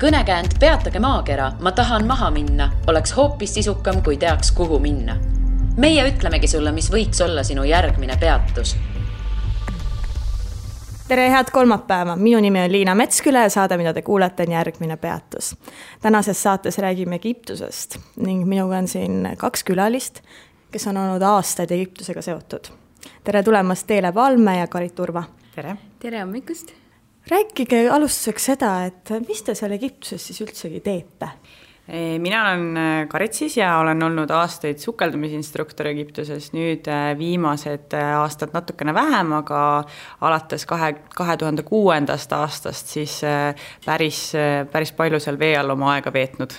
Kõnekäänd Peatage maakera, ma tahan maha minna, oleks hoopis sisukam, kui teaks, kuhu minna. Meie ütlemegi sulle, mis võiks olla sinu järgmine peatus. Tere, head kolmapäeva. Minu nimi on Liina Metsküle ja saade, mida te kuulete, on järgmine peatus. Tänases saates räägime Egiptusest ning minuga on siin 2 külalist, kes on olnud aastaid Egiptusega seotud. Tere tulemast Teele Palme ja Karit Urva. Tere. Tere hommikust. Rääkige alustuseks seda, et mis te seal Egiptuses siis üldsegi teete? Mina olen Karit siis ja olen olnud aastaid sukeldumisinstruktor Egiptuses, nüüd viimased aastad natukene vähem, aga alates 2006. aastast siis päris palju seal vee all oma aega veetnud.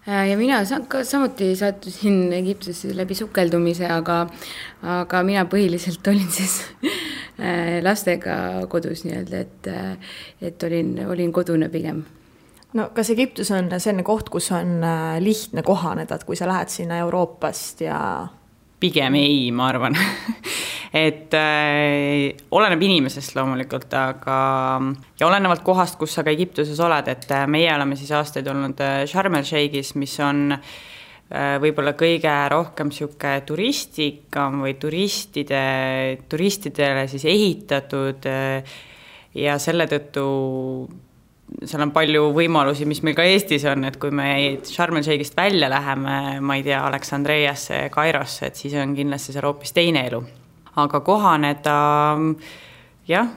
Ja mina samuti sattusin Egiptusesse läbi sukeldumise, aga mina põhiliselt olin siis lastega kodus nii-öelda, et olin kodune pigem. No kas Egiptus on selline koht, kus on lihtne kohaneda, kui sa lähed sinna Euroopast ja... Pigem ei, ma arvan. Et oleneb inimesest loomulikult, aga ja olenevalt kohast, kus sa ka Egiptuses oled, et meie oleme siis aastaid olnud Sharm el Sheikhis, mis on võib-olla kõige rohkem siuke turistikam või turistidele siis ehitatud ja selle tõttu seal on palju võimalusi, mis meil ka Eestis on, et kui me Sharm el Sheikhist välja läheme, ma ei tea, Aleksandriasse, Kairosse, et siis on kindlasti seal hoopis teine elu. Aga kohaneda, jah,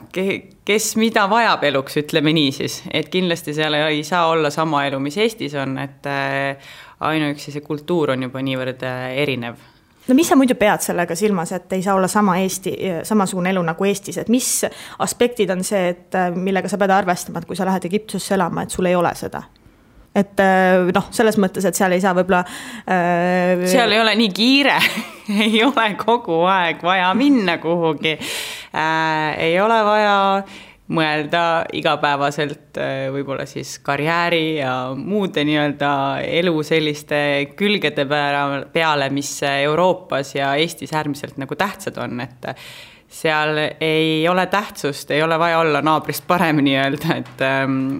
kes mida vajab eluks, ütleme nii siis, et kindlasti seal ei saa olla sama elu, mis Eestis on, et ainuüksi see kultuur on juba niivõrd erinev. No mis sa muidu pead sellega silmas, et ei saa olla samasugune elu nagu Eestis, et mis aspektid on see, et millega sa pead arvestama, et kui sa lähed Egiptusesse elama, et sul ei ole seda? Et selles mõttes, et seal ei saa võib-olla... Seal ei ole nii kiire, ei ole kogu aeg vaja minna kuhugi, ei ole vaja mõelda igapäevaselt võib-olla siis karjääri ja muude nii-öelda elu selliste külgede peale, mis Euroopas ja Eestis äärmiselt nagu tähtsad on, et seal ei ole tähtsust, ei ole vaja olla naabrist parem nii-öelda,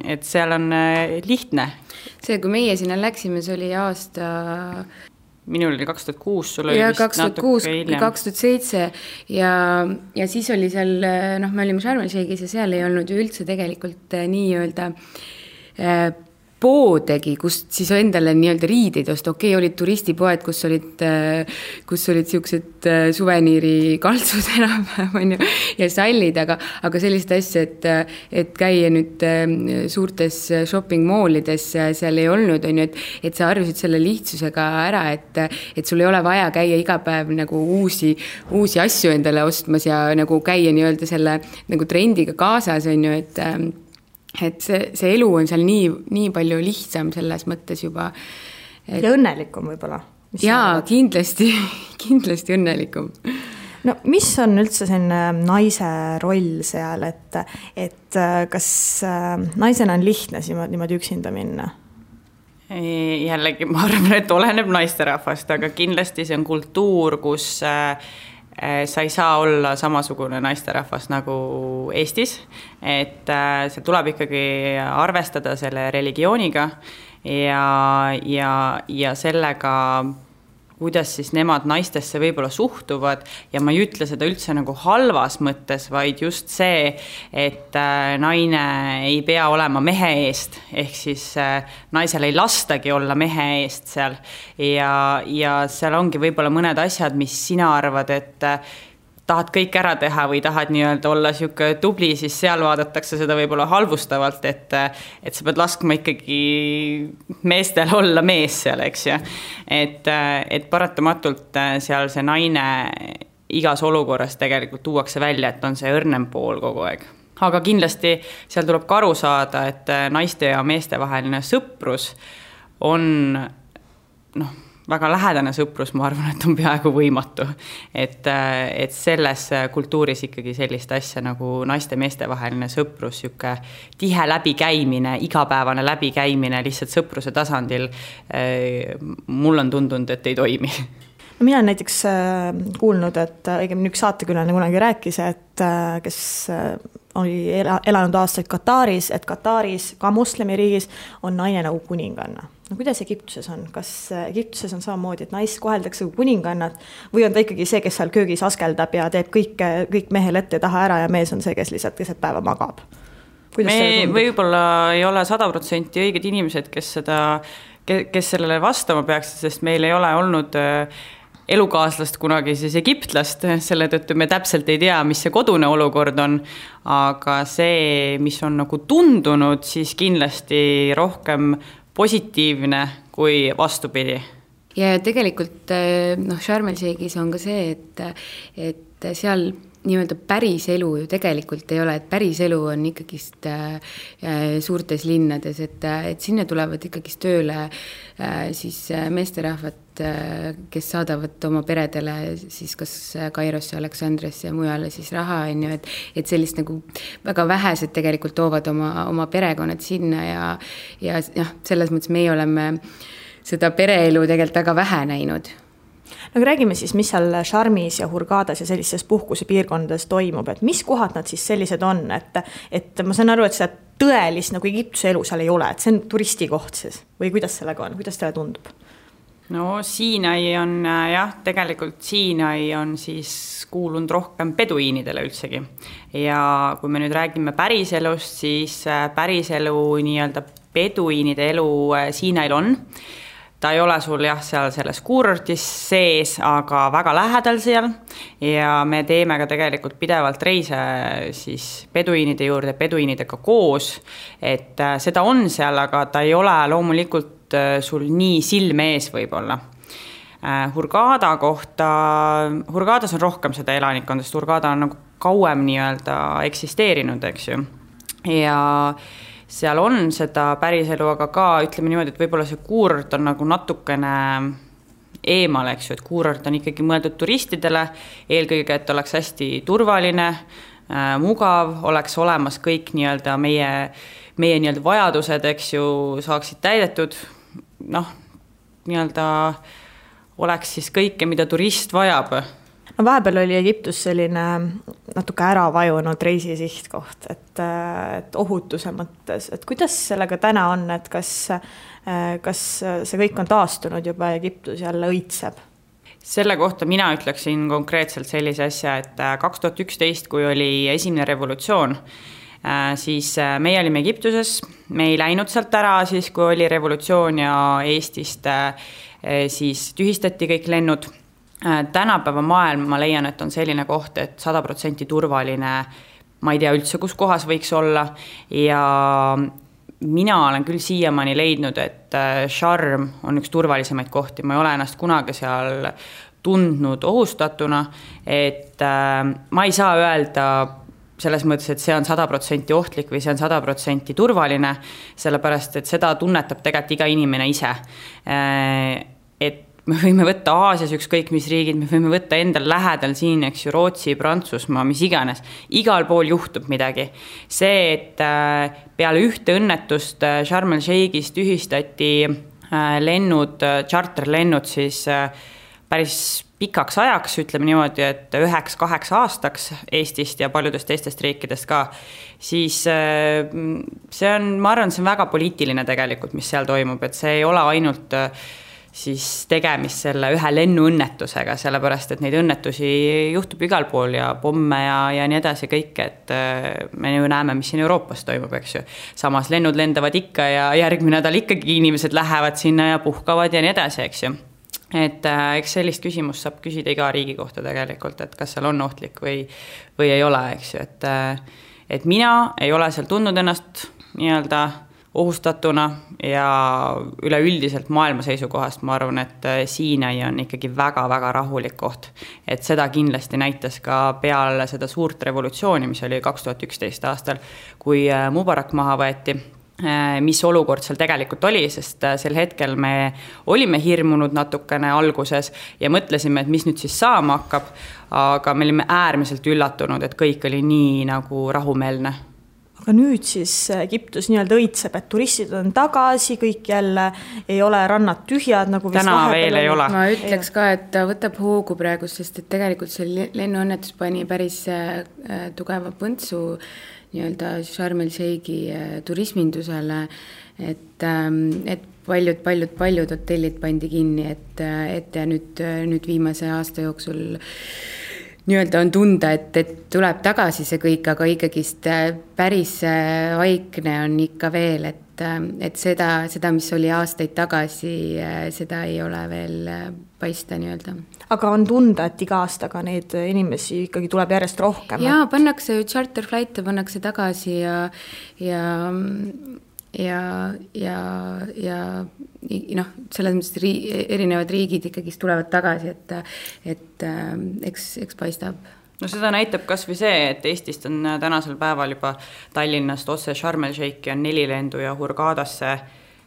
et seal on lihtne. See, kui meie sinna läksime, see oli aasta... Minul oli 2006, sul oli vist 2006, natuke hiljem. 2007 ja siis oli seal, me olime Sharm el Sheikhis ja seal ei olnud ju üldse tegelikult nii-öelda poodegi, kust siis endale nii-öelda riideid osta. Okei, olid turistipoed, kus olid siuksed suveniiri kaltsud enam ja sallid, aga sellist asja, et käia nüüd suurtes shopping mallides seal ei olnud, et sa arvasid selle lihtsusega ära, et sul ei ole vaja käia iga päev nagu uusi asju endale ostmas ja nagu käia nii-öelda selle nagu trendiga kaasas, et see elu on seal nii palju lihtsam selles mõttes juba. Ja õnnelikum võib-olla. Jaa, kindlasti õnnelikum. No mis on üldse selline naise roll seal, et kas naisena on lihtne niimoodi üksinda minna? Jällegi, ma arvan, et oleneb naisterahvast, aga kindlasti see on kultuur, kus... sa ei saa olla samasugune naisterahvas nagu Eestis, et see tuleb ikkagi arvestada selle religiooniga ja sellega, kuidas siis nemad naistesse võib-olla suhtuvad ja ma ei ütle seda üldse nagu halvas mõttes, vaid just see, et naine ei pea olema mehe eest, ehk siis naisel ei lastagi olla mehe eest seal ja seal ongi võib-olla mõned asjad, mis sina arvad, et tahad kõik ära teha või tahad nii-öelda olla siuke tubli, siis seal vaadatakse seda võib-olla halvustavalt, et sa pead laskma ikkagi meestel olla mees seal, eks ju. Et paratamatult seal see naine igas olukorras tegelikult tuuakse välja, et on see õrnem pool kogu aeg. Aga kindlasti seal tuleb ka aru saada, et naiste ja meeste vaheline sõprus on väga lähedane sõprus, ma arvan, et on peaaegu võimatu. Et selles kultuuris ikkagi sellist asja nagu naiste-meeste vaheline sõprus, siuke tihe läbikäimine, igapäevane läbikäimine lihtsalt sõpruse tasandil, mul on tundunud, et ei toimi. Mina olen näiteks kuulnud, et õigemini üks saatekülane kunagi rääkis, et kes oli elanud aastaid Kataris, et Kataris, ka moslemiriigis, on naine nagu kuninganna. No kuidas Egiptuses on? Kas Egiptuses on samamoodi, et naist koheldakse kui kuningannat või on ta ikkagi see, kes seal köögis askeldab ja teeb kõik mehel ette ja taha ära ja mees on see, kes lihtsalt keset päeva magab? Me võib-olla ei ole 100% õiged inimesed, kes sellele vastama peaks, sest meil ei ole olnud elukaaslast kunagi siis egiptlast, selle tõttu me täpselt ei tea, mis see kodune olukord on, aga see, mis on nagu tundunud, siis kindlasti rohkem positiivne kui vastupidi. Ja tegelikult Sharm el Sheikhis on ka see, et seal nii-öelda päris elu ju tegelikult ei ole, et päris elu on ikkagist suurtes linnades, et sinna tulevad ikkagist tööle siis meesterahvad, kes saadavad oma peredele siis kas Kairosse, Aleksandriasse ja mujale siis raha, et sellist nagu väga vähesed tegelikult toovad oma perekonnad sinna ja selles mõttes meie oleme seda pereelu tegelikult väga vähe näinud. No räägime siis, mis seal Sharmis ja Hurgadas ja sellistes puhkusepiirkondades toimub, et mis kohad nad siis sellised on, et ma saan aru, et seda tõelist nagu Egiptuse elu seal ei ole, et see on turistikoht siis või kuidas sellega on, kuidas teile tundub? No Siinai on tegelikult Siinai on siis kuulunud rohkem peduiinidele üldsegi ja kui me nüüd räägime päriselust, siis päriselu nii-öelda peduiinide elu Siinail on. Ta ei ole sul seal selles kuurortis sees, aga väga lähedal seal ja me teeme ka tegelikult pidevalt reise siis peduiinide juurde, peduiinidega koos, et seda on seal, aga ta ei ole loomulikult sul nii silme ees võib-olla. Hurgada kohta, Hurgadas on rohkem seda elanikkonda, sest Hurgada on nagu kauem nii-öelda eksisteerinud, eks ju, ja seal on seda päriselu, aga ka ütleme niimoodi, et võib-olla see kuurort on nagu natukene eemal, eks ju, et kuurort on ikkagi mõeldud turistidele, eelkõige, et oleks hästi turvaline, mugav, oleks olemas kõik nii-öelda meie nii-öelda vajadused, eks ju, saaksid täidetud, nii-öelda oleks siis kõike, mida turist vajab. No vahepeal oli Egiptus selline natuke ära vajunud reisisihtkoht, et ohutuse mõttes, et kuidas sellega täna on, et kas see kõik on taastunud juba Egiptus jälle õitseb? Selle kohta mina ütleksin konkreetselt sellise asja, et 2011, kui oli esimene revolutsioon, siis meie olime Egiptuses, me ei läinud sealt ära siis, kui oli revolutsioon ja Eestist siis tühistati kõik lennud. Tänapäeva maailm, ma leian, et on selline koht, et 100% turvaline, ma ei tea üldse, kus kohas võiks olla ja mina olen küll siiamaani leidnud, et Sharm on üks turvalisemaid kohti, ma ei ole ennast kunagi seal tundnud ohustatuna, et ma ei saa öelda selles mõttes, et see on 100% ohtlik või see on 100% turvaline, sellepärast, et seda tunnetab tegelikult iga inimene ise, et me võime võtta Aasias ükskõik mis riigid, me võime võtta endal lähedal siin, eks ju, Rootsi, Prantsusmaa, mis iganes. Igal pool juhtub midagi. See, et peale ühte õnnetust Sharm el Sheikhis tühistati lennud, charterlennud siis päris pikaks ajaks, ütleme niimoodi, et 9-8 aastaks Eestist ja paljudest teistest riikidest ka, siis see on, ma arvan, see on väga poliitiline tegelikult, mis seal toimub, et see ei ole ainult siis tegemist selle ühe lennuõnnetusega, sellepärast, et neid õnnetusi juhtub igal pool ja pomme ja nii edasi kõik, et me ju näeme, mis siin Euroopas toimub, eks ju. Samas lennud lendavad ikka ja järgmine nädal ikkagi inimesed lähevad sinna ja puhkavad ja nii edasi, eks ju. Et eks sellist küsimust saab küsida iga riigi kohta tegelikult, et kas seal on ohtlik või ei ole, eks ju. Et mina ei ole seal tundnud ennast nii-öelda ohustatuna ja üleüldiselt maailma seisukohast ma arvan, et Siinai on ikkagi väga-väga rahulik koht. Et seda kindlasti näitas ka peale seda suurt revolutsiooni, mis oli 2011 aastal, kui Mubarak maha võeti, mis olukord seal tegelikult oli, sest sel hetkel me olime hirmunud natukene alguses ja mõtlesime, et mis nüüd siis saama hakkab, aga me olime äärmiselt üllatunud, et kõik oli nii nagu rahumeelne. Aga nüüd siis Egiptus nii-öelda õitseb, et turistid on tagasi, kõik jälle ei ole rannad tühjad, nagu täna veel ei ole. Ma ütleks ka, et ta võtab hoogu praegu, sest et tegelikult see lennuõnnetus pani päris tugeva põntsu nii-öelda Sharm el Sheikhi turismindusele, et paljud hotellid pandi kinni, et ja nüüd viimase aasta jooksul nii-öelda on tunda, et tuleb tagasi see kõik, aga ikkagist päris vaikne on ikka veel, et seda, mis oli aastaid tagasi, seda ei ole veel paista nii-öelda. Aga on tunda, et iga aastaga neid inimesi ikkagi tuleb järjest rohkem? Jaa, pannakse charterflight'e, pannakse tagasi ja noh, selles mõttes erinevad riigid ikkagi tulevad tagasi, et eks paistab. No seda näitab kas või see, et Eestist on tänasel päeval juba Tallinnast otse Sharm el Sheikhi on 4 lendu ja Hurghadasse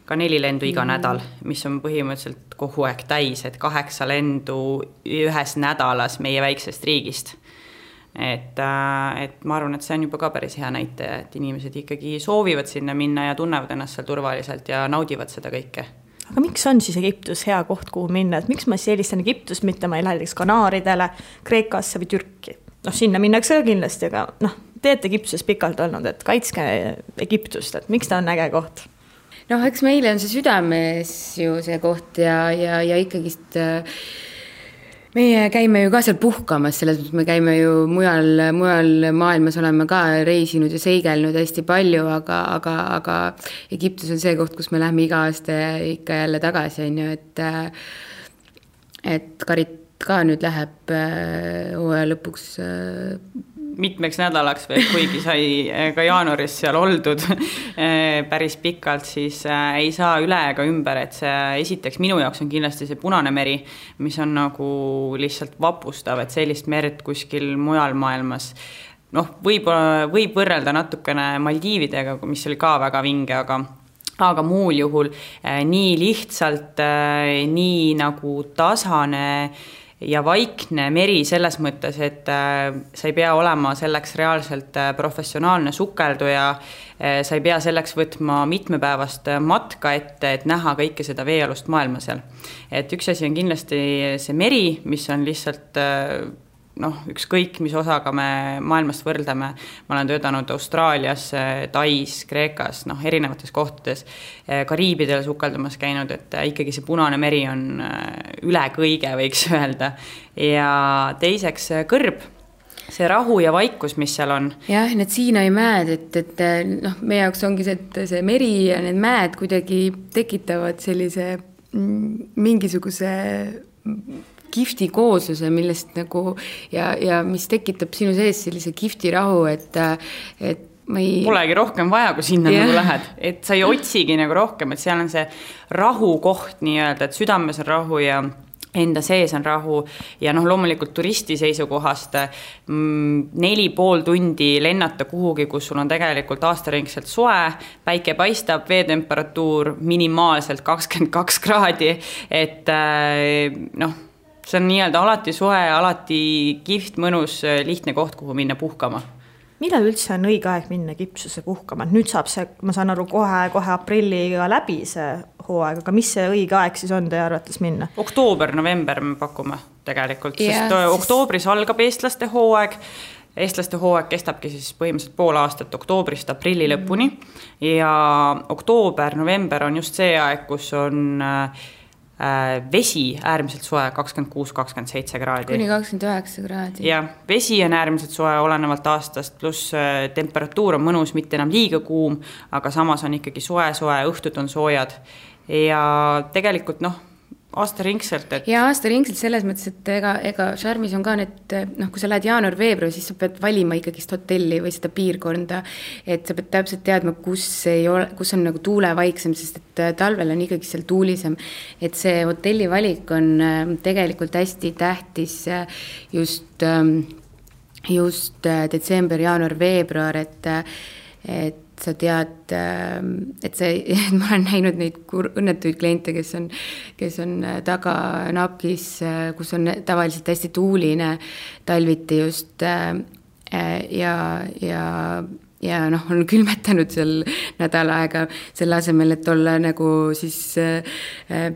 ka 4 lendu iga nädal, mis on põhimõtteliselt kogu aeg täis, et 8 lendu ühes nädalas meie väiksest riigist. Et ma arvan, et see on juba ka päris hea näitaja, et inimesed ikkagi soovivad sinna minna ja tunnevad ennast seal turvaliselt ja naudivad seda kõike. Aga miks on siis Egiptus hea koht, kuhu minna? Et miks ma eelistan Egiptust, mitte ma ei lähe Kanaaridele, Kreekasse või Türki? Noh, sinna minnakse ka kindlasti, aga teete Egiptuses pikalt olnud, et kaitske Egiptust, et miks ta on äge koht? Noh, eks meile on see südames ju see koht ja ikkagist meie käime ju ka seal puhkamas, selles mõttes me käime ju mujal maailmas oleme ka reisinud ja seigelnud hästi palju, aga Egiptus on see koht, kus me lähme iga aasta ikka jälle tagasi, on ju, et Karit ka nüüd läheb hooaja lõpuks mitmeks nädalaks veel, kuigi sai ka jaanuaris seal oldud päris pikalt, siis ei saa üle ega ümber, et see esiteks minu jaoks on kindlasti see Punane meri, mis on nagu lihtsalt vapustav, et sellist merd kuskil mujal maailmas võib võrrelda natukene Maldiividega, mis oli ka väga vinge, aga muul juhul nii lihtsalt, nii nagu tasane ja vaikne meri selles mõttes, et sa ei pea olema selleks reaalselt professionaalne sukelduja, sa ei pea selleks võtma mitmepäevast matka ette, et näha kõike seda veealust maailma seal. Et üks asi on kindlasti see meri, mis on lihtsalt ükskõik, mis osaga me maailmast võrdleme. Ma olen töötanud Austraalias, Tais, Kreekas, erinevates kohtades, Kariibidel sukeldamas käinud, et ikkagi see Punane meri on üle kõige, võiks öelda. Ja teiseks kõrb, see rahu ja vaikus, mis seal on. Jah, need Siinai mäed, et meie jaoks ongi see meri ja need mäed kuidagi tekitavad sellise mingisuguse kihvti koosluse, millest nagu ja mis tekitab sinu sees sellise kihvti rahu, et ma ei... Polegi rohkem vaja, kui sinna nagu lähed, et sa ei otsigi nagu rohkem, et seal on see rahukoht nii-öelda, et südames on rahu ja enda sees on rahu ja loomulikult turisti seisukohast 4,5 tundi lennata kuhugi, kus sul on tegelikult aastaringselt soe, päike paistab, veetemperatuur minimaalselt 22 kraadi, et see on nii-öelda alati soe, alati kihvt, mõnus, lihtne koht, kuhu minna puhkama. Millal üldse on õige aeg minna Egiptusse puhkama? Nüüd saab see, ma saan aru, kohe aprilliga läbi see hooaeg, aga mis see õige aeg siis on teie arvates minna? Oktoober, november me pakume tegelikult, sest oktoobris algab eestlaste hooaeg. Eestlaste hooaeg kestabki siis põhimõtteliselt pool aastat oktoobrist aprilli lõpuni ja oktoober, november on just see aeg, kus on vesi äärmiselt soe 26-27 kraadi. Kuni 29 kraadi. Ja vesi on äärmiselt soe olenevalt aastast, pluss temperatuur on mõnus, mitte enam liiga kuum, aga samas on ikkagi soe, õhtud on soojad. Ja tegelikult aastaringselt. Ja aastaringselt selles mõttes, et ega Sharmis on ka need, kui sa lähed jaanuar-veebruar, siis sa pead valima ikkagist hotelli või seda piirkonda, et sa pead täpselt teadma, kus on nagu tuule vaiksem, sest et talvel on ikkagi seal tuulisem, et see hotelli valik on tegelikult hästi tähtis just detsember, jaanuar, veebruar, et sa tead, et ma olen näinud neid õnnetuid kliente, kes on taga napkis, kus on tavaliselt hästi tuuline talviti just ja on külmetanud seal nädal aega selle asemel, et olla nagu siis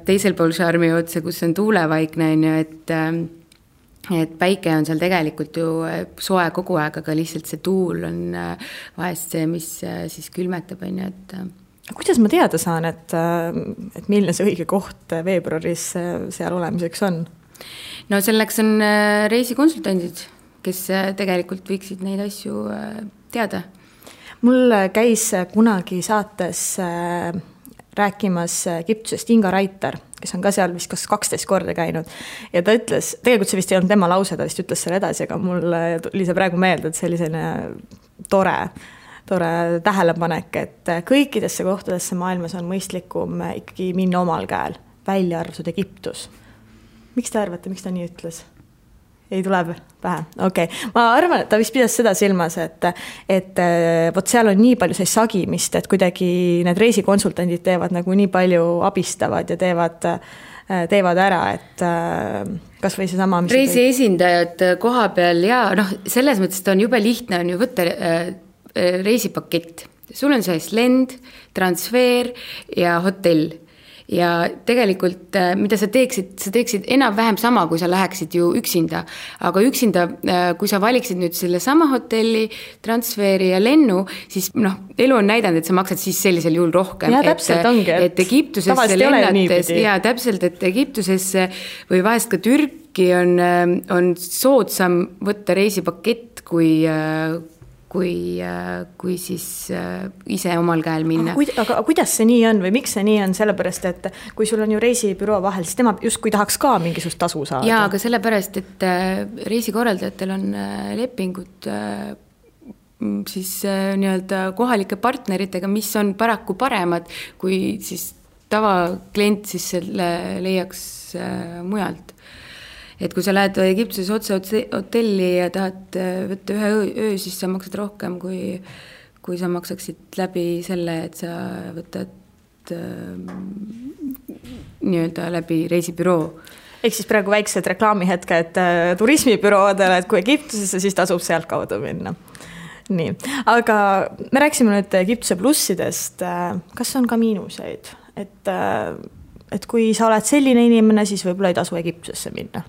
teisel pool Sharmi otse, kus on tuulevaikne, et päike on seal tegelikult ju soe kogu aeg, aga lihtsalt see tuul on vahest see, mis siis külmetab, on ju, et kuidas ma teada saan, et milline see õige koht veebruaris seal olemiseks on? No selleks on reisikonsultandid, kes tegelikult võiksid neid asju teada. Mul käis kunagi saates rääkimas Egiptusest Inga Raiter, kes on ka seal vist 12 korda käinud. Ja ta ütles, tegelikult see vist ei olnud tema lause, ta vist ütles selle edasi, aga mul tuli see praegu meelde, et see oli selline tore tähelepanek, et kõikidesse kohtadesse maailmas on mõistlikum ikkagi minna omal käel, välja arvatud Egiptus. Miks te arvate, miks ta nii ütles? Ei tuleb pähe? Okei. Ma arvan, et ta vist pidas seda silmas, et võt seal on nii palju see sagimist, et kuidagi need reisikonsultandid teevad nagu nii palju abistavad ja teevad ära, et kas või see sama reisi esindajad koha peal ja selles mõttes ta on jube lihtne on ju võtta reisipakett. Sul on siis lend, transfer ja hotell. Ja tegelikult, mida sa teeksid enam-vähem sama, kui sa läheksid ju üksinda. Aga üksinda, kui sa valiksid nüüd selle sama hotelli, transferi ja lennu, siis elu on näidanud, et sa maksad siis sellisel juhul rohkem. Ja täpselt ongi, et Egiptusesse lennates, ja täpselt, et Egiptusesse või vahest ka Türki on soodsam võtta reisipakett, kui siis ise omal käel minna. Aga kuidas see nii on või miks see nii on? Sellepärast, et kui sul on ju reisibüroo vahel, siis tema just kui tahaks ka mingisugust tasu saada. Jaa, aga sellepärast, et reisikorraldajatel on lepingud siis nii-öelda kohalike partneritega, mis on paraku paremad, kui siis tavaklient siis selle leiaks mujalt. Et kui sa lähed Egiptuses otse hotelli ja tahad võtta ühe öö, siis sa maksad rohkem, kui sa maksaksid läbi selle, et sa võtad nii-öelda läbi reisibüroo. Ehk siis praegu väiksed reklaamihetked turismibüroodele, et kui Egiptusesse, siis tasub sealt kaudu minna. Nii, aga me rääksime nüüd Egiptuse plussidest. Kas on ka miinuseid? Et kui sa oled selline inimene, siis võib-olla ei tasu Egiptusesse minna.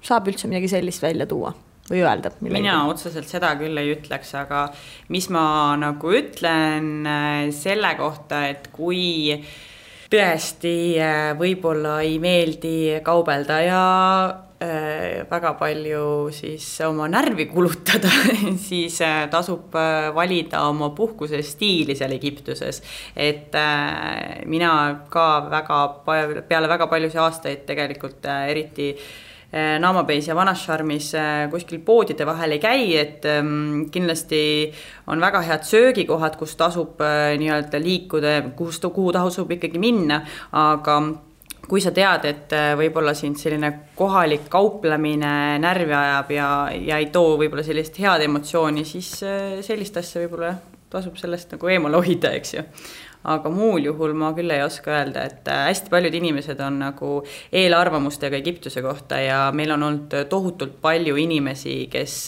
Saab üldse midagi sellist välja tuua või öelda? Mina otseselt seda küll ei ütleks, aga mis ma nagu ütlen selle kohta, et kui tõesti võib-olla ei meeldi kaubelda ja väga palju siis oma närvi kulutada, siis tasub valida oma puhkuse stiili seal Egiptuses. Et mina ka peale väga paljusi aastaid tegelikult eriti Naamabeis ja Vanasharmis kuskil poodide vahel ei käi, et kindlasti on väga head söögikohad, kus tasub nii-öelda liikuda, kuhu tasub ikkagi minna, aga kui sa tead, et võib-olla sind selline kohalik kauplemine närvi ajab ja ei too võib-olla sellist head emotsiooni, siis sellist asja võib-olla tasub sellest nagu eemale hoida, eks ju. Aga muul juhul ma küll ei oska öelda, et hästi paljud inimesed on nagu eelarvamustega Egiptuse kohta ja meil on olnud tohutult palju inimesi, kes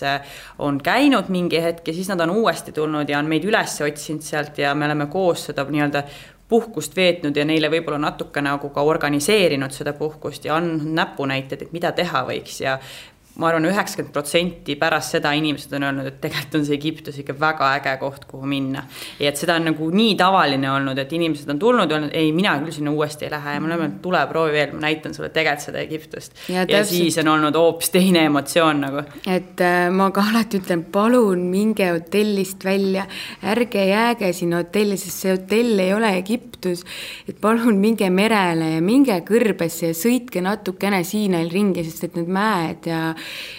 on käinud mingi hetk ja siis nad on uuesti tulnud ja on meid üles otsinud sealt ja me oleme koos seda nii-öelda puhkust veetnud ja neile võib-olla natuke nagu ka organiseerinud seda puhkust ja on näpunäited, et mida teha võiks ja ma arvan, 90% pärast seda inimesed on öelnud, et tegelikult on see Egiptus ikka väga äge koht, kuhu minna. Ja et seda on nagu nii tavaline olnud, et inimesed on tulnud ja öelnud, ei, mina küll sinna uuesti ei lähe ja ma olen, tule proovi veel, ma näitan sulle tegelikult seda Egiptust. Ja siis on olnud hoopis teine emotsioon nagu. Et ma ka alati ütlen, palun minge hotellist välja, ärge jääge sinna hotelli, sest see hotell ei ole Egiptus, et palun minge merele ja minge kõrbesse ja sõitke natukene Siinail ringi, sest et need mäed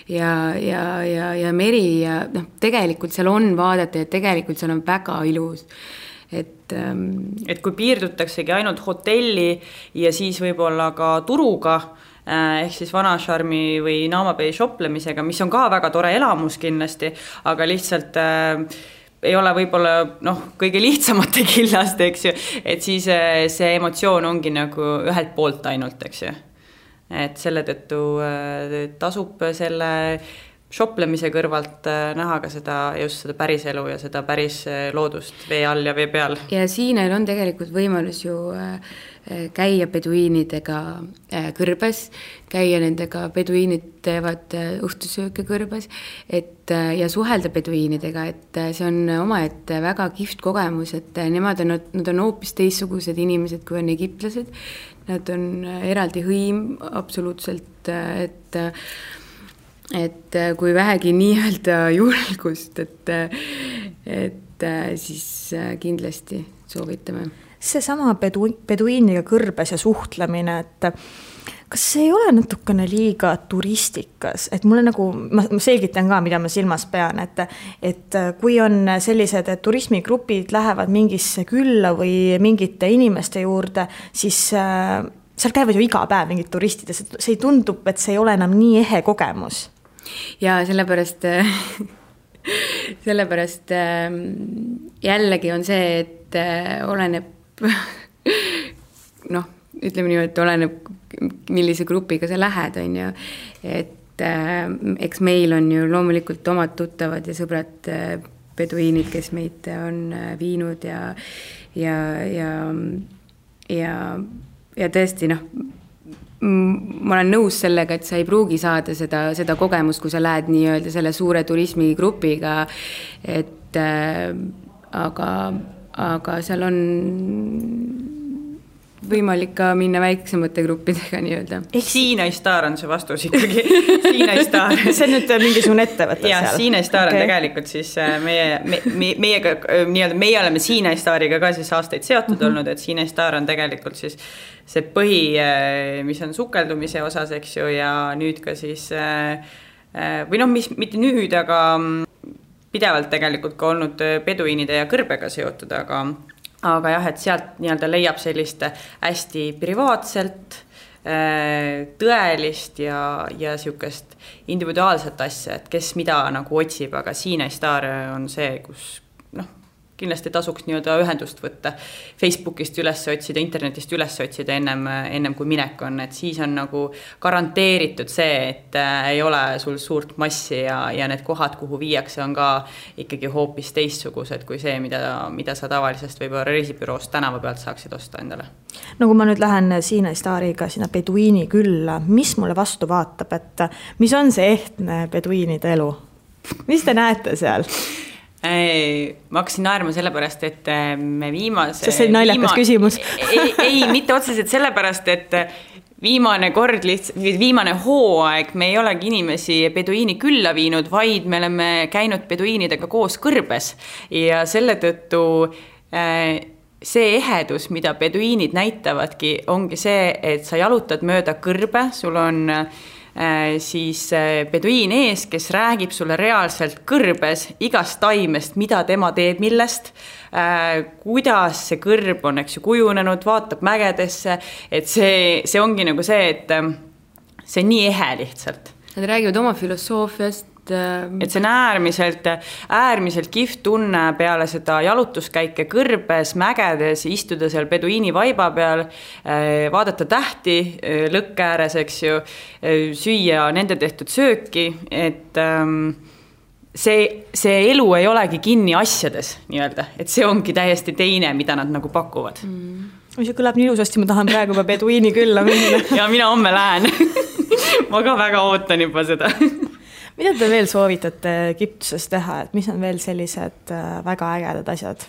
ja meri ja tegelikult seal on vaadata ja tegelikult seal on väga ilus. Et kui piirdutaksegi ainult hotelli ja siis võib-olla ka turuga, ehk siis Vanasharmi või Naamabei shoplemisega, mis on ka väga tore elamus kindlasti, aga lihtsalt ei ole võib-olla kõige lihtsamate killast, eks ju, et siis see emotsioon ongi nagu ühelt poolt ainult, eks ju. Et selle tõttu tasub selle shoplemise kõrvalt näha ka just seda päris elu ja seda päris loodust vee all ja vee peal. Ja Siinail on tegelikult võimalus ju käia peduiinidega kõrbes, käia nendega, peduiinid teevad õhtusööke kõrbes, ja suhelda peduiinidega, et see on omaette väga kihvt kogemus, et nad on hoopis teistsugused inimesed, kui on egiptlased. Nad on eraldi hõim absoluutselt, et kui vähegi nii-öelda julgust, et siis kindlasti soovitame. Seesama peduiiniga kõrbes ja suhtlemine, et kas see ei ole natukene liiga turistikas, et mulle nagu, ma selgitan ka, mida ma silmas pean, et kui on sellised turismigrupid lähevad mingisse külla või mingite inimeste juurde, siis seal käivad ju iga päev mingid turistid ja see ei tundub, et see ei ole enam nii ehe kogemus. Ja sellepärast jällegi on see, et oleneb ütleme nii, et oleneb, millise grupiga sa lähed, on ju, et eks meil on ju loomulikult omad tuttavad ja sõbrad peduiinid, kes meid on viinud ja tõesti, ma olen nõus sellega, et sa ei pruugi saada seda kogemust, kui sa lähed nii-öelda selle suure turismigrupiga, et aga seal on võimalik ka minna väiksemate gruppidega nii-öelda. Sinai Star on see vastus ikkagi. Sinai Star. See on nüüd mingisugune ettevõte seal. Sinai Star on tegelikult siis meie oleme Sinai Stariga ka siis aastaid seotud olnud, et Sinai Star on tegelikult siis see põhi, mis on sukeldumise osas, eks ju, ja nüüd ka siis või mis mitte nüüd, aga pidevalt tegelikult ka olnud peduiinide ja kõrbega seotud, aga jah, et sealt nii-öelda leiab sellist hästi privaatselt, tõelist ja siukest individuaalset asja, et kes mida nagu otsib, aga Sinai Star on see, kus kindlasti tasuks nii-öelda ühendust võtta, Facebookist üles otsida, internetist üles otsida ennem kui minek on, et siis on nagu garanteeritud see, et ei ole sul suurt massi ja need kohad, kuhu viiakse, on ka ikkagi hoopis teistsugused kui see, mida sa tavalisest võib-olla reisibüroost tänava pealt saaksid osta endale. No kui ma nüüd lähen Sinai Stariga sinna peduiini külla, mis mulle vastu vaatab, et mis on see ehtne peduiinide elu? Mis te näete seal? Ma hakkasin naerma sellepärast, et me viimase... See on naljakas küsimus. ei, mitte otseselt sellepärast, et viimane hooaeg me ei olegi inimesi peduiini külla viinud, vaid me oleme käinud peduiinidega koos kõrbes ja selle tõttu see ehedus, mida peduiinid näitavadki, ongi see, et sa jalutad mööda kõrbe, sul on siis peduiin ees, kes räägib sulle reaalselt kõrbes igast taimest, mida tema teeb millest, kuidas see kõrb on, eks ju, kujunenud, vaatab mägedesse, et see ongi nagu see, et see on nii ehe lihtsalt. Nad räägivad oma filosoofiast. Et see on äärmiselt kihvt tunne peale seda jalutuskäike kõrbes, mägedes, istuda seal peduiini vaiba peal, vaadata tähti lõkke ääres, eks ju, süüa nende tehtud sööki, et see elu ei olegi kinni asjades, nii-öelda, et see ongi täiesti teine, mida nad nagu pakuvad. See kõlab nii ilusasti, ma tahan praegu juba peduiini külla minna. Ja mina homme lähen. Ma ka väga ootan juba seda. Mida te veel soovitate Egiptuses teha, et mis on veel sellised väga ägedad asjad?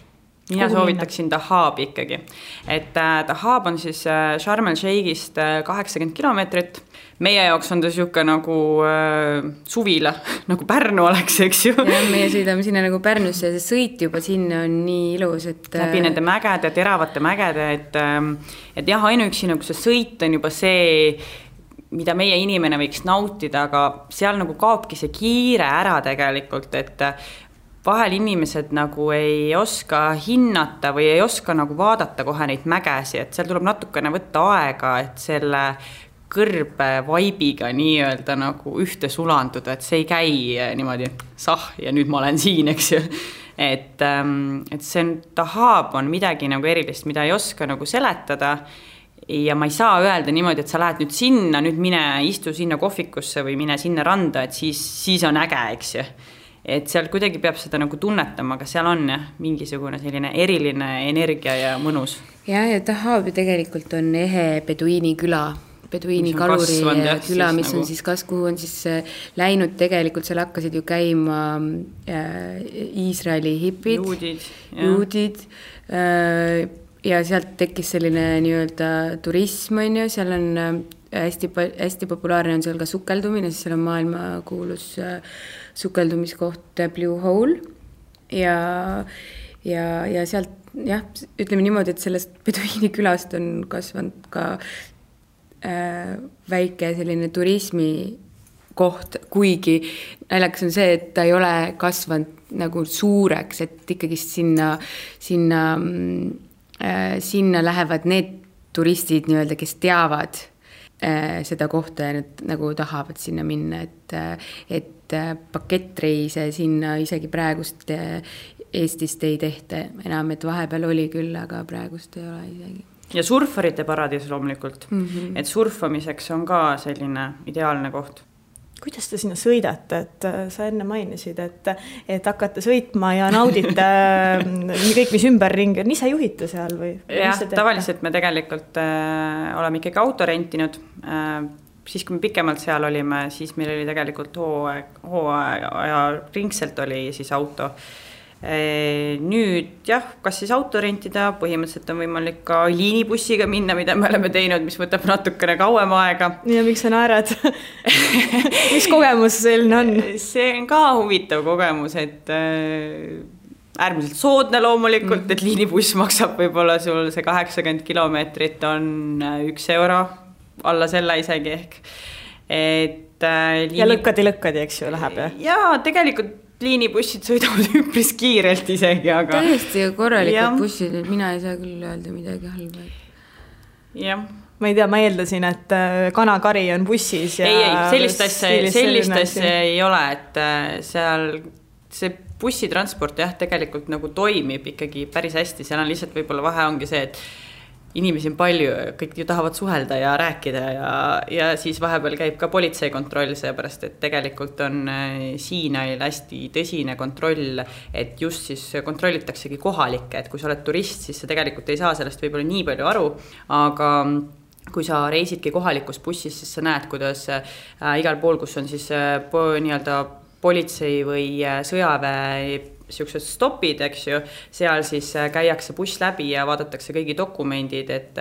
Mina soovitaksin Dahabi ikkagi. Et Dahab on siis Sharm el-Sheikhist 80 kilomeetrit. Meie jaoks on ta siuke nagu suvila, nagu Pärnu oleks, eks ju. Ja meie sõidame sinna nagu Pärnusse ja see sõit juba sinna on nii ilus, et... Läbi nende mägede, teravate mägede, et jah, ainuüksi nagu see sõit on juba see... mida meie inimene võiks nautida, aga seal nagu kaobki see kiire ära tegelikult, et vahel inimesed nagu ei oska hinnata või ei oska nagu vaadata kohe neid mägesi, et seal tuleb natukene võtta aega, et selle kõrbe vaibiga nii-öelda nagu ühte sulanduda, et see ei käi niimoodi ja nüüd ma olen siin, eks ju. Et see Dahab on midagi nagu erilist, mida ei oska nagu seletada. Ja ma ei saa öelda niimoodi, et sa lähed nüüd sinna, nüüd mine istu sinna kohvikusse või mine sinna randa, et siis on äge, eks ju. Et seal kuidagi peab seda nagu tunnetama, aga seal on mingisugune selline eriline energia ja mõnus. ja Dahab ju tegelikult on ehe beduiini küla, beduiini kaluri küla, mis on siis kuhu on siis läinud tegelikult, seal hakkasid ju käima Iisraeli hipid, juudid ja sealt tekkis selline nii-öelda turism, on ju, seal on hästi populaarne on seal ka sukeldumine, siis seal on maailmakuulus sukeldumiskoht Blue Hole ja sealt ütleme niimoodi, et sellest beduiini külast on kasvanud ka väike selline turismikoht, kuigi naljakas on see, et ta ei ole kasvanud nagu suureks, et ikkagi sinna lähevad need turistid nii-öelda, kes teavad seda kohta ja nad nagu tahavad sinna minna, et pakettreise sinna isegi praegust Eestist ei tehta enam, et vahepeal oli küll, aga praegust ei ole isegi. Ja surfarite paradiis loomulikult, et surfamiseks on ka selline ideaalne koht. Kuidas te sinna sõidate, et sa enne mainisid, et hakkate sõitma ja naudite kõik, mis ümberringi on, ise juhite seal või? Jah, tavaliselt me tegelikult oleme ikkagi auto rentinud. Siis kui me pikemalt seal olime, siis meil oli tegelikult hooaja ringselt oli siis auto. Nüüd kas siis auto rentida, põhimõtteliselt on võimalik ka liinibussiga minna, mida me oleme teinud, mis võtab natukene kauem aega. Ja miks sa naerad? Mis kogemus selline on? See on ka huvitav kogemus, et äärmiselt soodne loomulikult, et liinibuss maksab võib-olla sul see 80 kilomeetrit on 1 euro, alla selle isegi ehk. Ja lõkkadi, eks ju, läheb? Ja tegelikult liinibussid sõidavad üpris kiirelt isegi, aga... Täiesti korralikud bussid, et mina ei saa küll öelda midagi halba. Jah. Ma ei tea, ma eeldasin, et kanakari on bussis ja... Ei, sellist asja ei ole, et seal see bussitransport tegelikult nagu toimib ikkagi päris hästi, seal on lihtsalt võib-olla vahe ongi see, et inimesi on palju, kõik ju tahavad suhelda ja rääkida ja siis vahepeal käib ka politseikontroll, seepärast, et tegelikult on Siinail hästi tõsine kontroll, et just siis kontrollitaksegi kohalikke, et kui sa oled turist, siis sa tegelikult ei saa sellest võib-olla nii palju aru, aga kui sa reisidki kohalikus bussis, siis sa näed, kuidas igal pool, kus on siis nii-öelda politsei või sõjaväe siuksed stopid, eks ju, seal siis käiakse buss läbi ja vaadatakse kõigi dokumendid, et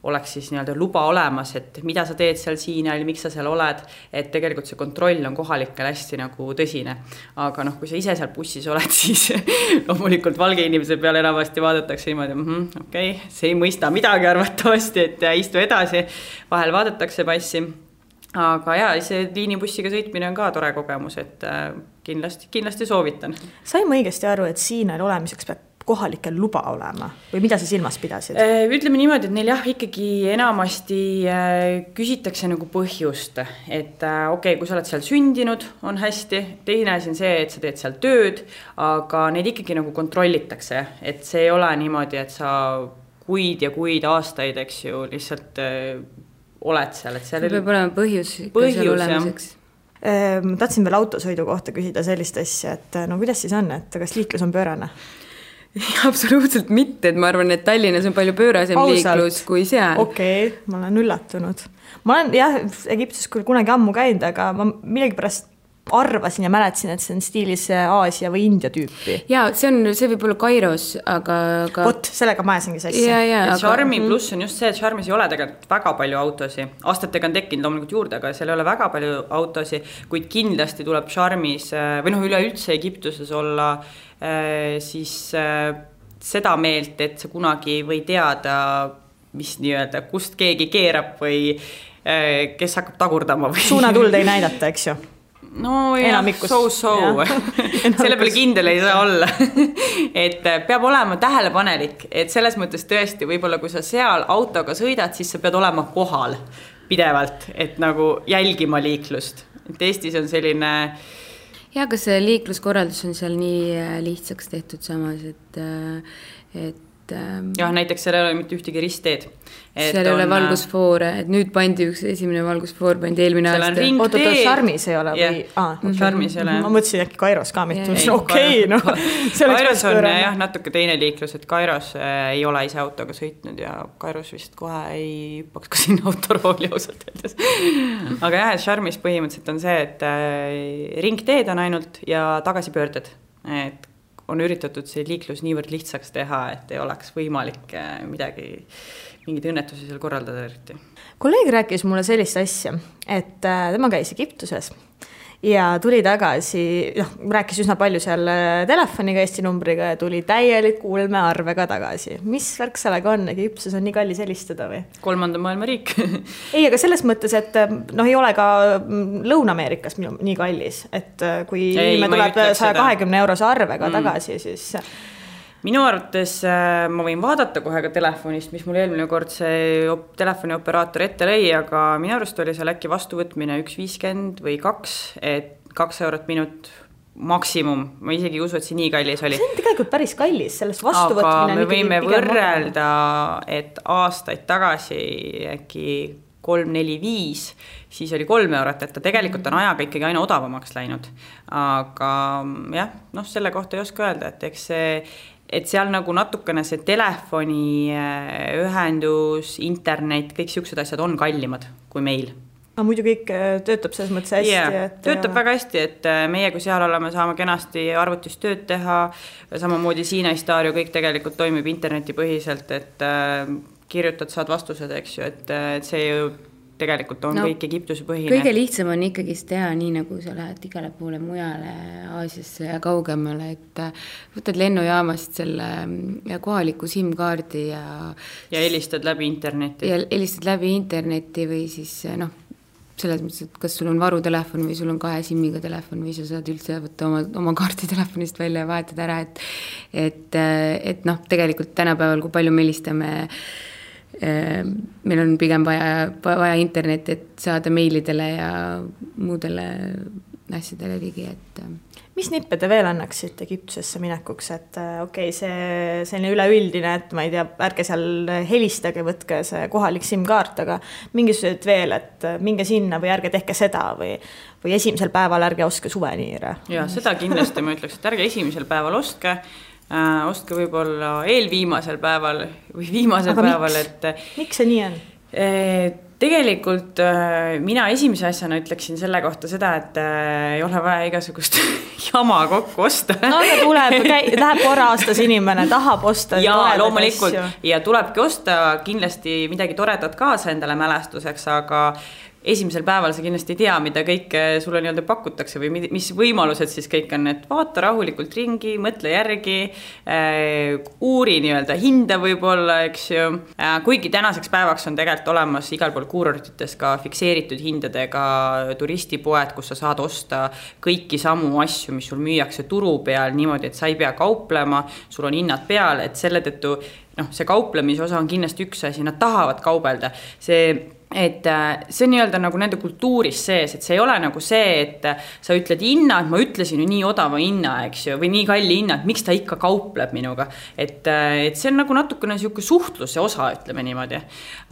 oleks siis nii-öelda luba olemas, et mida sa teed seal Siinail, miks sa seal oled, et tegelikult see kontroll on kohalikel hästi nagu tõsine. Aga kui sa ise seal bussis oled, siis loomulikult valge inimese peale enamasti vaadatakse niimoodi, okei, see ei mõista midagi arvatavasti, et istu edasi, vahel vaadatakse passi. Aga see liinibussiga sõitmine on ka tore kogemus, et kindlasti soovitan. Sain ma õigesti aru, et Siinail olemiseks peab kohalikel luba olema või mida sa silmas pidasid? Ütleme niimoodi, et neil ikkagi enamasti küsitakse nagu põhjust, et okei, kui sa oled seal sündinud, on hästi, teine asi on see, et sa teed seal tööd, aga neid ikkagi nagu kontrollitakse, et see ei ole niimoodi, et sa kuid ja kuid aastaid, eks ju, lihtsalt oled seal, et seal peab olema põhjus seal olemiseks. Ma tahtsin veel autosõidu kohta küsida sellist asja, et kuidas siis on, et kas liiklus on pöörane? Absoluutselt mitte, et ma arvan, et Tallinnas on palju pöörasem liiklus kui seal. Okei, ma olen üllatunud. Ma olen Egiptuses küll kunagi ammu käinud, aga ma millegipärast arvasin ja mäletasin, et see on stiilis Aasia või India tüüpi. Ja, see võib olla Kairos, aga... Vot, sellega ma ajasingi sassi. Charmi pluss on just see, et Charmis ei ole tegelikult väga palju autosi. Aastatega on tekkinud loomulikult juurde, aga seal ei ole väga palju autosi, kuid kindlasti tuleb Charmis, või üleüldse Egiptuses olla siis seda meelt, et sa kunagi või teada, mis nii-öelda, kust keegi keerab või kes hakkab tagurdama. Suunatuld ei näidata, eks ju? No jah, so. Selle peale kindel ei saa olla. Et peab olema tähelepanelik, et selles mõttes tõesti, võib-olla kui sa seal autoga sõidad, siis sa pead olema kohal pidevalt, et nagu jälgima liiklust. Et Eestis on selline... Ja, kas see liikluskorraldus on seal nii lihtsaks tehtud samas, et jah, näiteks seal ei ole mitte ühtegi ristteed. Seal ei ole valgusfoore, et nüüd pandi üks esimene valgusfoor, pandi eelmine aasta. Oota, Charmis ei ole või? Charmis ei ole. Ma mõtlesin äkki Kairos ka mitte, okei, noh. Kairos on jah natuke teine liiklus, et Kairos ei ole ise autoga sõitnud ja Kairos vist kohe ei hüppaks ka sinna autorooli ausalt öeldes. Aga jah, et Charmis põhimõtteliselt on see, et ringteed on ainult ja tagasipöörded, et on üritatud see liiklus niivõrd lihtsaks teha, et ei oleks võimalik mingid õnnetusi seal korraldada eriti. Kolleeg rääkis mulle sellist asja, et tema käis Egiptuses ja tuli tagasi, rääkis üsna palju seal telefoniga, Eesti numbriga ja tuli täieliku ulmearvega tagasi. Mis värk sellega on? Egiptuses on nii kallis helistada või? 3. maailma riik. Ei, aga selles mõttes, et ei ole ka Lõuna-Ameerikas nii kallis, et kui me tuleb 120 eurose arvega tagasi, siis... Minu arvates ma võin vaadata kohe ka telefonist, mis mul eelmine kord see telefonioperaator ette lõi, aga minu arust oli seal äkki vastuvõtmine 1,50 või 2, et 2 eurot minut maksimum. Ma isegi ei usu, et see nii kallis oli. See on tegelikult päris kallis, sellest vastuvõtmine. Aga me võime võrrelda, et aastaid tagasi äkki 3, 4, 5, siis oli 3 eurot, et ta tegelikult on ajaga ikkagi aina odavamaks läinud. Aga jah, selle kohta ei oska öelda, et eks see et seal nagu natukene see telefoni ühendus, internet, kõik siuksed asjad on kallimad kui meil. Aga muidu kõik töötab selles mõttes hästi. Yeah, töötab väga hästi, et meie kui seal oleme, saame kenasti arvutis tööd teha, samamoodi Siina Stario, kõik tegelikult toimib internetipõhiselt, et kirjutad, saad vastused, eks ju, et see ju tegelikult on kõik Egiptuse põhine. Kõige lihtsam on ikkagi teha nii, nagu sa lähed igale poole mujale Aasiasse ja kaugemale, et võtad lennujaamast selle kohaliku SIM-kaardi ja helistad läbi interneti. Ja helistad läbi interneti või siis selles mõttes, et kas sul on varutelefon või sul on 2 SIM-iga telefon või sa saad üldse võtta oma kaardi telefonist välja ja vahetada ära, et tegelikult tänapäeval, kui palju me helistame meil on pigem vaja internet, et saada meilidele ja muudele asjadele ligi, et mis nippe te veel annaksite Egiptusesse minekuks, et see selline üleüldine, et ma ei tea, ärge seal helistage, võtke see kohalik SIM-kaart, aga mingisugused veel, et minge sinna või ärge tehke seda või esimesel päeval ärge ostke suveniire. Ja seda kindlasti ma ütleks, et ärge esimesel päeval ostke võib-olla eelviimasel päeval või viimasel päeval, et miks see nii on? Tegelikult mina esimese asjana ütleksin selle kohta seda, et ei ole vaja igasugust jama kokku osta. No aga läheb korra aastas inimene, tahab osta ja loomulikult asju. Ja tulebki osta kindlasti midagi toredat kaasa endale mälestuseks, aga esimesel päeval sa kindlasti ei tea, mida kõik sulle nii-öelda pakutakse või mis võimalused siis kõik on, et vaata rahulikult ringi, mõtle järgi, uuri nii-öelda hinda võib-olla, eks ju. Kuigi tänaseks päevaks on tegelikult olemas igal pool kuurortites ka fikseeritud hindadega turistipoed, kus sa saad osta kõiki samu asju, mis sul müüakse turu peal niimoodi, et sa ei pea kauplema, sul on hinnad peal, et selle tõttu see kauplemise osa on kindlasti üks asi, nad tahavad kaubelda. See on nii-öelda nagu nende kultuuris sees, et see ei ole nagu see, et sa ütled hinna, et ma ütlesin ju nii odava hinna, eks ju, või nii kalli hinna, et miks ta ikka kaupleb minuga. Et see on nagu natukene siuke suhtluse osa, ütleme niimoodi.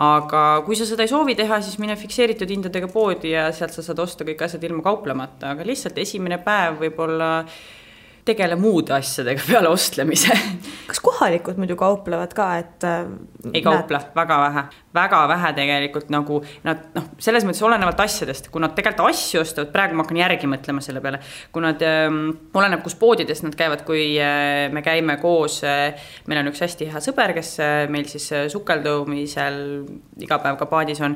Aga kui sa seda ei soovi teha, siis mine fikseeritud hindadega poodi ja sealt sa saad osta kõik asjad ilma kauplemata, aga lihtsalt esimene päev võib-olla tegele muude asjadega peale ostlemise. Kas kohalikud muidu kauplevad ka, et ei kauple, väga vähe tegelikult nagu nad, selles mõttes olenevalt asjadest, kui nad tegelikult asju ostavad, praegu ma hakkan järgi mõtlema selle peale, kui nad oleneb, kus poodides nad käivad, kui me käime koos, meil on üks hästi hea sõber, kes meil siis sukeldumisel iga päev ka paadis on,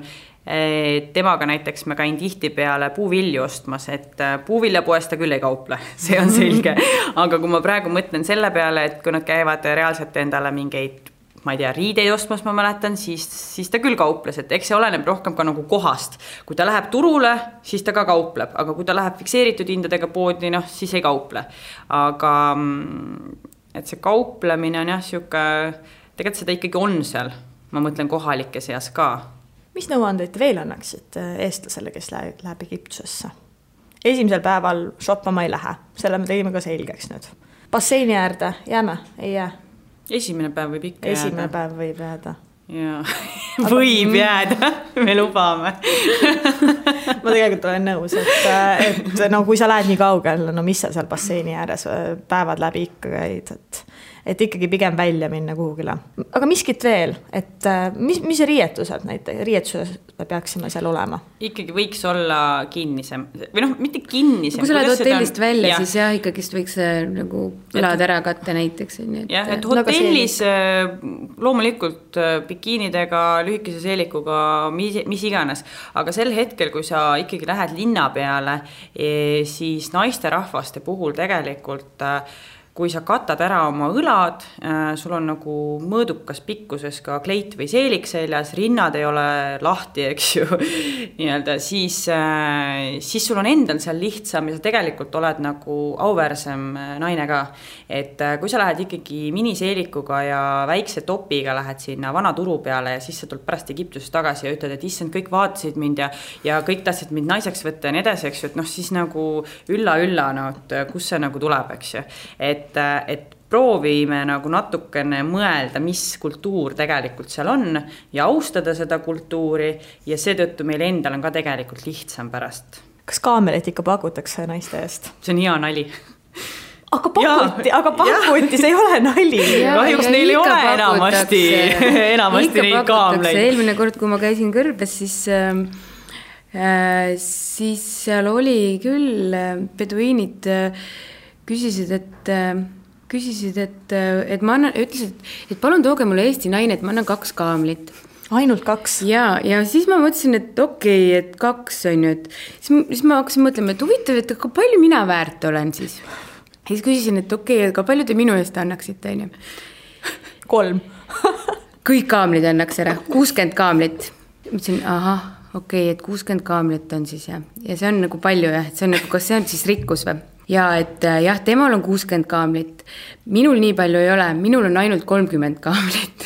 temaga näiteks ma käin tihti peale puuvilju ostmas, et puuviljapoest ta küll ei kauple, see on selge. Aga kui ma praegu mõtlen selle peale, et kui nad käivad reaalselt endale mingeid, ma ei tea, riideid ostmas, ma mäletan, siis ta küll kauples, et eks see oleneb rohkem ka nagu kohast. Kui ta läheb turule, siis ta ka kaupleb, aga kui ta läheb fikseeritud hindadega poodi, siis ei kauple. Aga et see kauplemine on jah, tegelikult seda ikkagi on seal, ma mõtlen kohalike seas ka. Mis nõuandeid veel annaksid eestlasele, kes läheb Egiptusesse? Esimesel päeval shoppama ei lähe, selle me tegime ka selgeks nüüd. Basseini äärde jääme, ei jää? Esimene päev võib ikka jääda. Esimene päev võib jääda. Ja. Võib jääda, me lubame. Ma tegelikult olen nõus, et no kui sa lähed nii kaugel, no mis sa seal basseini ääres päevad läbi ikka käid, et ikkagi pigem välja minna kuhugile. Aga miskit veel, et mis riietused näiteks, riietuses peaksime seal olema? Ikkagi võiks olla kinnisem, või noh, mitte kinnisem. Kui sa lähed hotellist välja, siis jah, ikkagi võiks nagu elad ära katta näiteks. Jah, et hotellis loomulikult bikiinidega, lühikese seelikuga, mis iganes. Aga sel hetkel, kui sa ikkagi lähed linna peale, siis naisterahvaste puhul tegelikult kui sa katad ära oma õlad, sul on nagu mõõdukas pikkuses ka kleit või seelik seljas, rinnad ei ole lahti, eks ju, nii-öelda, siis sul on endal seal lihtsam ja sa tegelikult oled nagu auväärsem naine ka. Et kui sa lähed ikkagi miniseelikuga ja väikse topiga lähed sinna vana turu peale ja siis sa tuled pärast Egiptusest tagasi ja ütled, et issand, kõik vaatasid mind ja kõik tahtsid mind naiseks võtta ja nii edasi, eks ju, et noh, siis nagu ülla, no, et kus see nagu tuleb, eks ju. Et proovime nagu natukene mõelda, mis kultuur tegelikult seal on ja austada seda kultuuri ja seetõttu meil endal on ka tegelikult lihtsam pärast. Kas kaamelit ikka pakutakse naiste eest? See on hea nali. Aga pakuti, see ei ole nali. Kahjuks neil ei ole enamasti neid kaamleid. Eelmine kord, kui ma käisin Kõrbes, siis seal oli küll beduiinid küsisid, et ma annan, ütlesid, et palun tooge mulle Eesti naine, et ma annan 2 kaamlit. Ainult 2? Ja siis ma mõtlesin, et okei, et 2 on ju, et siis ma hakkasin mõtlema, et huvitav, et aga palju mina väärt olen siis. Ja siis küsisin, et okei, aga palju te minu eest annaksite, on ju? 3. Kõik kaamlid annaks ära, 60 kaamlit. Mõtlesin, okei, et 60 kaamlit on siis ja see on nagu palju jah, et see on nagu, kas see on siis rikkus või? Ja et jah, temal on 60 kaamlit. Minul nii palju ei ole, minul on ainult 30 kaamlit.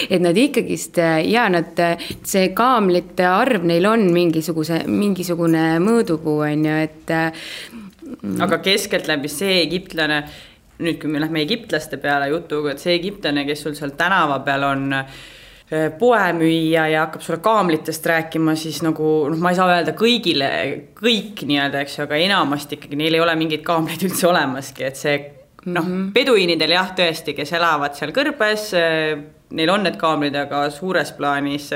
Et nad ikkagist, ja see kaamlite arv neil on mingisugune mõõdupuu, on ju, et... Aga keskelt läbi see egiptlane, nüüd kui me lähme egiptlaste peale jutuga, et see egiptlane, kes sul seal tänava peal on poemüüja ja hakkab sulle kaamlitest rääkima, siis nagu, ma ei saa öelda kõigile, kõik nii-öelda, eks ju, aga enamasti ikkagi neil ei ole mingeid kaamleid üldse olemaski, et see, beduiinidel jah, tõesti, kes elavad seal Kõrbes, neil on need kaamlid, aga suures plaanis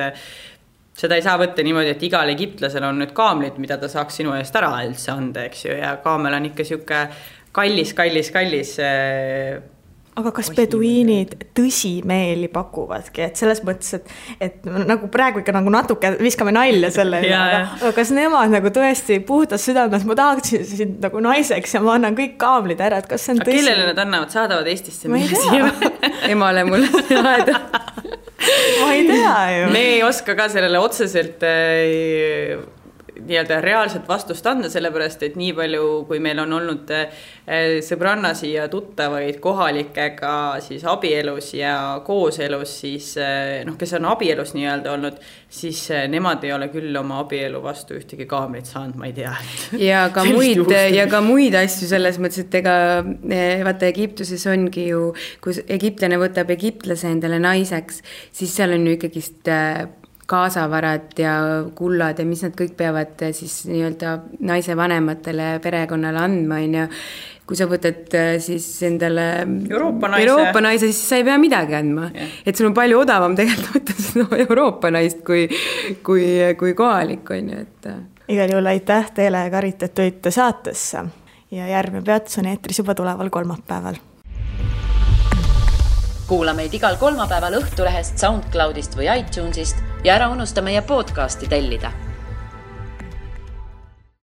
seda ei saa võtta niimoodi, et igal egiptlasel on nüüd kaamlid, mida ta saaks sinu eest ära üldse anda, eks ju, ja kaamel on ikka siuke kallis aga kas beduiinid tõsimeeli pakuvadki, et selles mõttes, et nagu praegu ikka nagu natuke viskame nalja selle, aga kas nemad nagu tõesti puhtas südames, ma tahaksin sind nagu naiseks ja ma annan kõik kaamlid ära, et kas see on tõsi? Kellele nad annavad, saadavad Eestisse? Ma ei tea. Emale mulle saada. Ma ei tea ju. Me ei oska ka sellele otseselt nii-öelda reaalset vastust anda, sellepärast, et nii palju, kui meil on olnud sõbrannasi ja tuttavaid kohalikega siis abielus ja kooselus, siis kes on abielus nii-öelda olnud, siis nemad ei ole küll oma abielu vastu ühtegi kaamlit saanud, ma ei tea. Ja ka muid asju selles mõttes, et ega vaata Egiptuses ongi ju, kui egiptlane võtab egiptlase endale naiseks, siis seal on ju ikkagist kaasavarad ja kullad ja mis nad kõik peavad siis nii-öelda naise vanematele perekonnale andma, on ju. Kui sa võtad siis endale Euroopa naise, siis sa ei pea midagi andma. Yeah. Et sul on palju odavam tegelikult võtta Euroopa naist kui kohalik, on ju. Igal juhul aitäh teile, Karit, et tulite saatesse ja järgmine peatus on eetris juba tuleval kolmapäeval. Kuula meid igal kolmapäeval Õhtulehest, SoundCloudist või iTunesist ja ära unusta meie podcasti tellida.